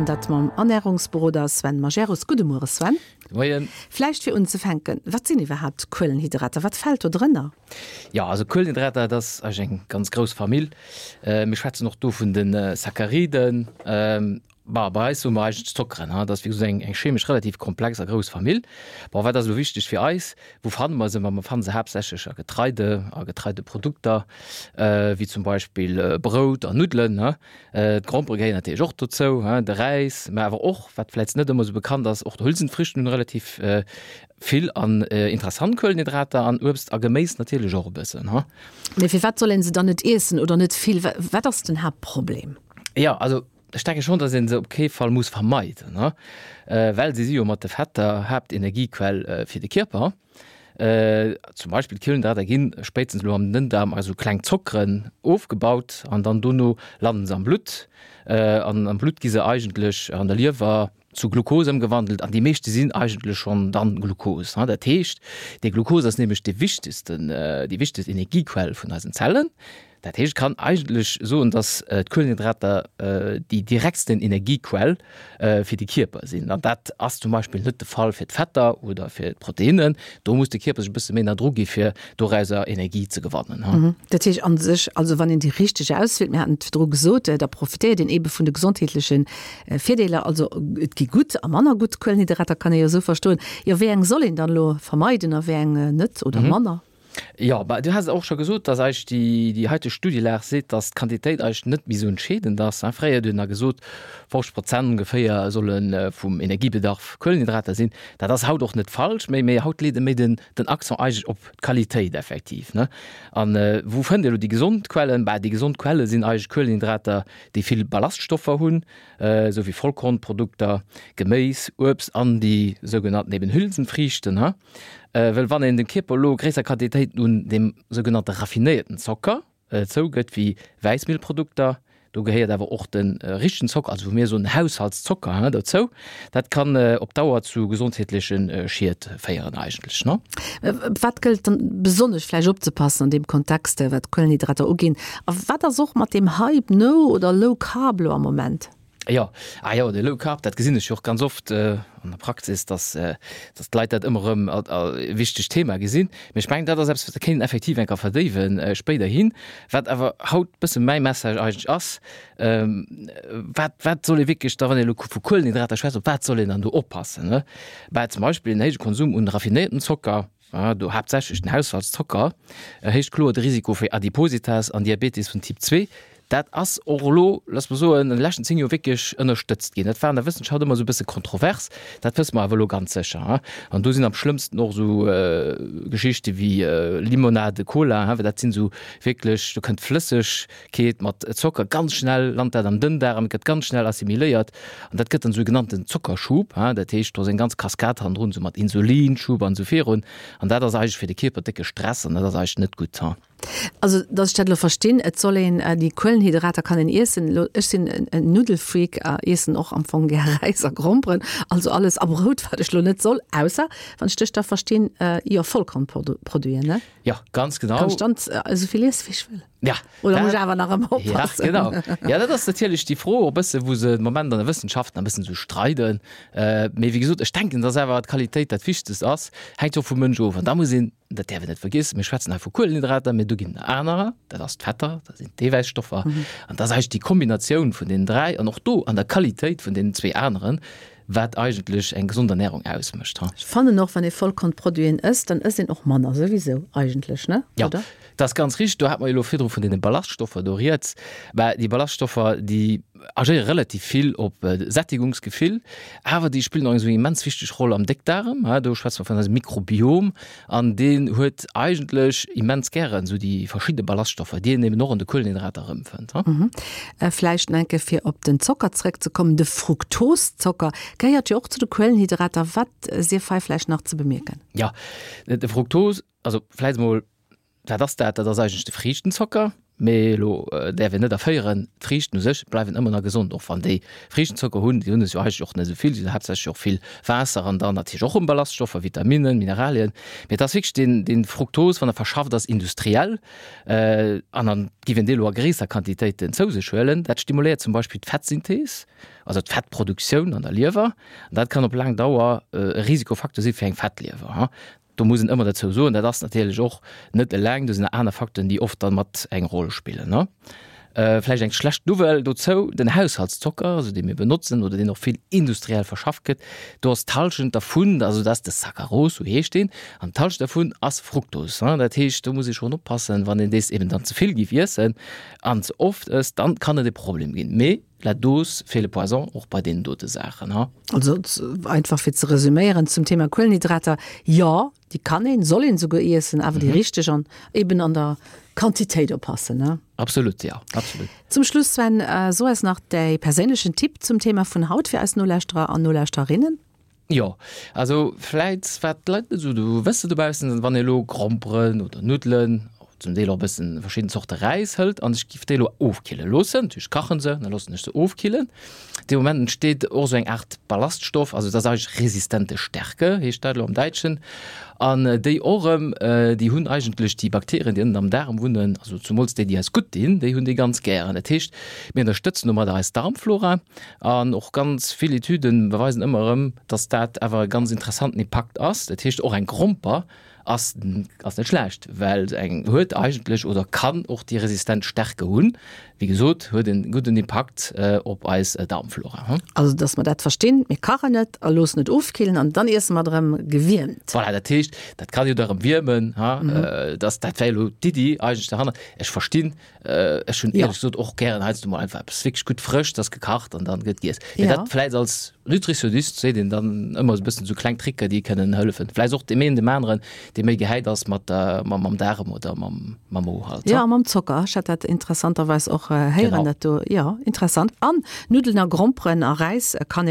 An dat mam Ernärungsberoder Sven Majerus. Gudde Muere Sven. Gudde Moien. Vläicht fir unzefänken, wat sinn iwwerhaapt Kuelenhydrater? Wat fält do drënner? Jo, also Kuelenhydrater, dat ass eigentlech eng ganz grouss Famill. Mir schwätzen och do vun de Sacchariden. Bah, bei eis soe mer eigentlech Zockeren. Dat ass wéi gesot eng chemesch relativ komplex a grouss Famill. Bon, wat ass elo wichteg fir eis? Wou fanne mer se? Ma mer fanne se haaptsächlech a Getreide, a Getreideprodukter, wéi zum Beispill Brout an Nuddelen. D'Grompere gehéieren natierlech och dozou, de Räis, mä awer och, wat vläicht net ëmmer esou bekannt ass, och d'Hülsenfrüchten hunn relativ vill an interessant Kuelenhydrater an Uebst a Geméis natierlech och e bëssen. Mee firwat soll een se dann net iessen oder net vill? Wat ass den Haaptproblem? Jo, also Ech denke schonn, datt ee se op kee Fall muss vermeiden, well si si jo mat de Fetter Haaptenergiequell fir de Kierper. Zum Beispill d'Kuelenhydrater gi spéitstens elo am Dënndaarm a sou kleng Zockeren ofgebaut an dann dono landen se am Blutt. An am Blutt gi se eigentlech an der Liewer zu Glukos ëmgewandelt an déi meeschte sinn eigentlech schonn dann Glukos. Dat heescht, dee Glukos ass nämlech dee wichtegsten, déi wichtegst Energiequell vun eisen Zellen. Dat heescht, et kann eigentlech soen, datt d'Kuelenhydrater déi direktsten Energiequell fir de Kierper sinn. An dat ass zum Beispill net de Fall fir d'Fetter oder fir d'Proteinnen. Do muss de Kierper sech e bësse méi ënner Drock gi fir dorauser Energie ze gewannen. Dat heescht a sech, also wann een déi richteg auswielt, mir haten et virdru gesot, da profitéiert een eebe vun de gesondheetleche Virdeeler. Also et gi gutt a manner gutt Kuelenhydrater, kann ee jo esou verstoen. Jo, wéi eng soll een dann elo vermeiden a wéi eng net oder manner? Jo, bah, du has et och scho gesot, dass eigentlech déi, déi haiteg Studielag seet, dass d'Quantitéit eigentlech net méi esou entscheedend ass. Fréier huet een nach gesot, 50 Prozent ongeféier solle vum Energiebedarf Kuelenhydrater sinn. Dat ass haut och net falsch méi, mee haut leet e méi den, den Accent eigentlech op d'Qualitéit effektiv, ne. An wou fënnt ee elo déi gesond Quellen? Bah, déi gesond Quelle sinn eigentlech Kuelenhydrater, déi vill Ballaststoffer hunn, esou wéi Vollkornprodukter, Geméis, Uebst an déi sougenannten eben Hülsenfriichten. Well wann een dem Kierper elo gréisser Quantitéiten un deem sougenannte raffinéierten Zocker zougëtt, wéi Wäissmielprodukter, do gehéiert awer och de richtegen Zocker, also wou mir soen Haushaltszocker, dozou, dat kann op Dauer zu gesondheetleche Schied féieren eigentlech. Wat gëllt dann besonnesch vläicht opzepassen an deem Kontext, wat d'Kuelenhydrater uginn? A wat ass och mat deem Hype No oder Low Carb elo am Moment? Jo, ah jo, de Low Carb, dat gesinn ech jo och ganz oft an der Praxis, dass, dass d'Leit dat ëmmer erëm als e wichtegt Thema gesinn. Mee ech mengen, dat ass eppes, wat kéint een effektiv eng Kéier verdéiwen spéiderhin. Wat awer haut e bësse mäi Message eigentlech ass, Wat, wat soll ee wierklech da, wann ee elo vu Kuelenhydrater schwätzt, op wat soll een dann do oppassen, ne? Bah, zum Beispill en héije Konsum un raffinéiertem Zocker, do haaptsächlech den Haushaltszocker, erhéicht kloer de Risiko fir Adipositas an Diabetes vun Typ 2. Dat ass och elo, looss mer soen, an de leschten 10 Joer wierklech ënnerstëtzt ginn. Dat war an der Wëssenschaft ëmmer esou e bësse kontrovers, dat wësse mer awer elo ganz sécher. An do sinn am schlëmmsten och esou Geschichte wéi Limonade, Cola, well dat sinn esou wierklech, do kënnt Flëssegkeet mat Zocker ganz schnell, lant dat am Dënndaarm, gëtt ganz schnell assimiléiert an dat gëtt dann esou e genannten Zockerschub. Dat heescht, do ass eng ganz Kaskad hannendrun, esou mat Insulinschub an esou virun. An dat ass eigentlech fir de Kierper décke Stress an dat ass eigentlech net gutt. Also, dass ech dat elo verstinn, et soll een déi Kuelenhydrater kann een iessen. Elo, ech sinn en Nuddelfreak a iessen och am Fong gär Räis a Gromperen, also alles a Brout, wat ech elo net soll, ausser, wann ech dech da verstinn, jo Vollkornproduiten, ne? Jo, ganz genau. Kann ech dann esou vill iesse wéi ech wëll? Ja. Oder muss ech awer nach ëmmer oppassen? Ja, genau. Ja, dat ass natierlech déi Fro och e bësse, wou se de Moment an der Wëssenschaft nach e bëssen esou streiden. Mee wéi gesot, ech denken, dass awer d'Qualitéit dat Wichtegst ass. Hänkt jo och vum Mënsch of. An da muss een, dat däerf een net vergiessen, mir schwätzen hei vu Kuelenhydrater, mee do ginn et nach anerer, dat ass d'Fetter, dat sinn d'Eewäisstoffer. An dat ass eigentlech déi Kombinatioun vun deenen 3 an och do an der Qualitéit vun deenen zwee aneren, wat eigentlech eng gesond Ernährung ausmécht. Ech fannen och, wann ee Vollkornproduiten ësst, dann ësst een och manner souwisou eigentlech, ne? Jo, dat ass ganz richteg. Do hat mer jo elo virdru vun deene Ballaststoffer do rieds. Mä déi Ballaststoffer, déi agéiere relativ vill op Sättigungsgefill, awer déi spillen och eng esou immens wichteg Roll am Déckdaarm. Do schwätze mer vun eisem Mikrobiom an deen huet eigentlech immens gären esou déi verschidde Ballaststoffer, déi een eben och an de Kuelenhydrater erëmfënnt. Vläicht nach eng Kéier fir op den Zocker zrëckzekommen, De Fruktoszocker gehéiert jo och zu de Kuelenhydrater. Wat sief hei vläicht nach ze bemierken? Jo, de Fruktos, also vläicht emol, wat ass dat? Dat ass eigentlech de Friichtenzocker. Mee elo däerf een net erféieren, d'Friichten u sech bleiwen ëmmer nach gesond, och wann déi Friichtenzocker hunn. Déi hunn es jo eigentlech och net esou vill, si hunn haaptsächlech och vill Waasser an dann natierlech och erëm Ballaststoffer, Vitaminnen, Mineralien. Mee et ass wierklech deen, dee Fruktos, wann e verschafft ass industriell, an dann giff een dee elo a gréisser Quantitéiten zou sech huelen, dat stimuléiert zum Beispill d'Fettsynthees, also d'Fettproduktioun an der Liewer, an dat kann op laang Dauer e Risikofacteur si fir eng Fettliewer. Do muss een ëmmer dozou soen, dat ass natierlech och net eleng, do sinn nach aner Facteuren, déi oft dann mat eng Roll spillen. Vläicht eng schlecht Nouvelle dozou, den Haushaltszocker, also dee mir benotzen oder deen och vill industriell verschafft gëtt, do ass d'Hallschent dervun, also dat ass de Saccharose, sou heescht deen, an d'Hallschent dervun ass Fructos. Dat heescht, do muss ee schonn oppassen, wann een dees eben dann ze vill géif iessen an ze oft ësst, dann kann et e Problem ginn. Mee La dose fait le poison, och bei deenen dote Saachen, ha. Also einfach fir ze resüméieren zum Thema Kuelenhydrater, jo, déi kann een, soll een souguer iessen, awer déi richteg an eben an der Quantitéit oppassen, ne? Absolut, jo, absolut. Zum Schluss, Sven, so eis nach däi perséinlechen Tipp zum Thema vun haut fir eis Nolauschterer an Nolauschtererinnen. Jo, also vläit wat d'Leit net esou do wësse dobaussen, wann ee elo Gromperen oder Nuddelen, zum Deel och e bëssen verschidden Zorte Räis hëlt an ech giff déi elo ofkille loossen, natierlech kachen se, da loossen ech se ofkillen. Dee Moment entsteet och esou eng Aart Ballaststoff, also dat ass eigentlech resistente Stärke heescht dat elo am Däitschen, an déi och erëm, déi hunn eigentlech déi Bakterien, déi ënnen am Daarm wunnen, also zumools déi, déi eis gutt dinn, déi hunn déi ganz gären. Dat heescht, mir ënnerstëtzen domadder eis Darmflora. An och ganz vill Etüden beweisen ëmmer erëm, dass dat awer e ganz interessanten Impakt ass. Dat heescht, och eng Gromper ass ass net schlecht, well se eng huet eigentlech oder kann och déi resistent Stärke hunn. Wéi gesot, huet en gudden Impakt op eis Darmflora. Also dass mer dat verstinn, mir kachen et a loossen et ofkillen an dann iesse mer et erëm gewiermt. Voilà, dat heescht, dat kann jo da erëm wiermen, ha, dass dat wär elo d'Iddi eigentlech derhannert. Ech verstinn, Ech hunn éierlech gesot och gären heiansdo mol einfach eppes wierklech gutt frëscht, ass gekacht an dann gëtt giess. Mee dat vläicht als Nutritionist seet een dann ëmmer esou e bëssen esou kleng Tricker, déi kënnen hëllefen. Vläicht och deem een deem aneren, dee méi gehäit ass mat der, mam, mam Daarem oder mam, mam Mo halt. Jo, a mam Zocker. Ech hat dat interessanterweis och héieren, dat do. Jo, interessant. An Nuddelen a Gromperen a Räis kann.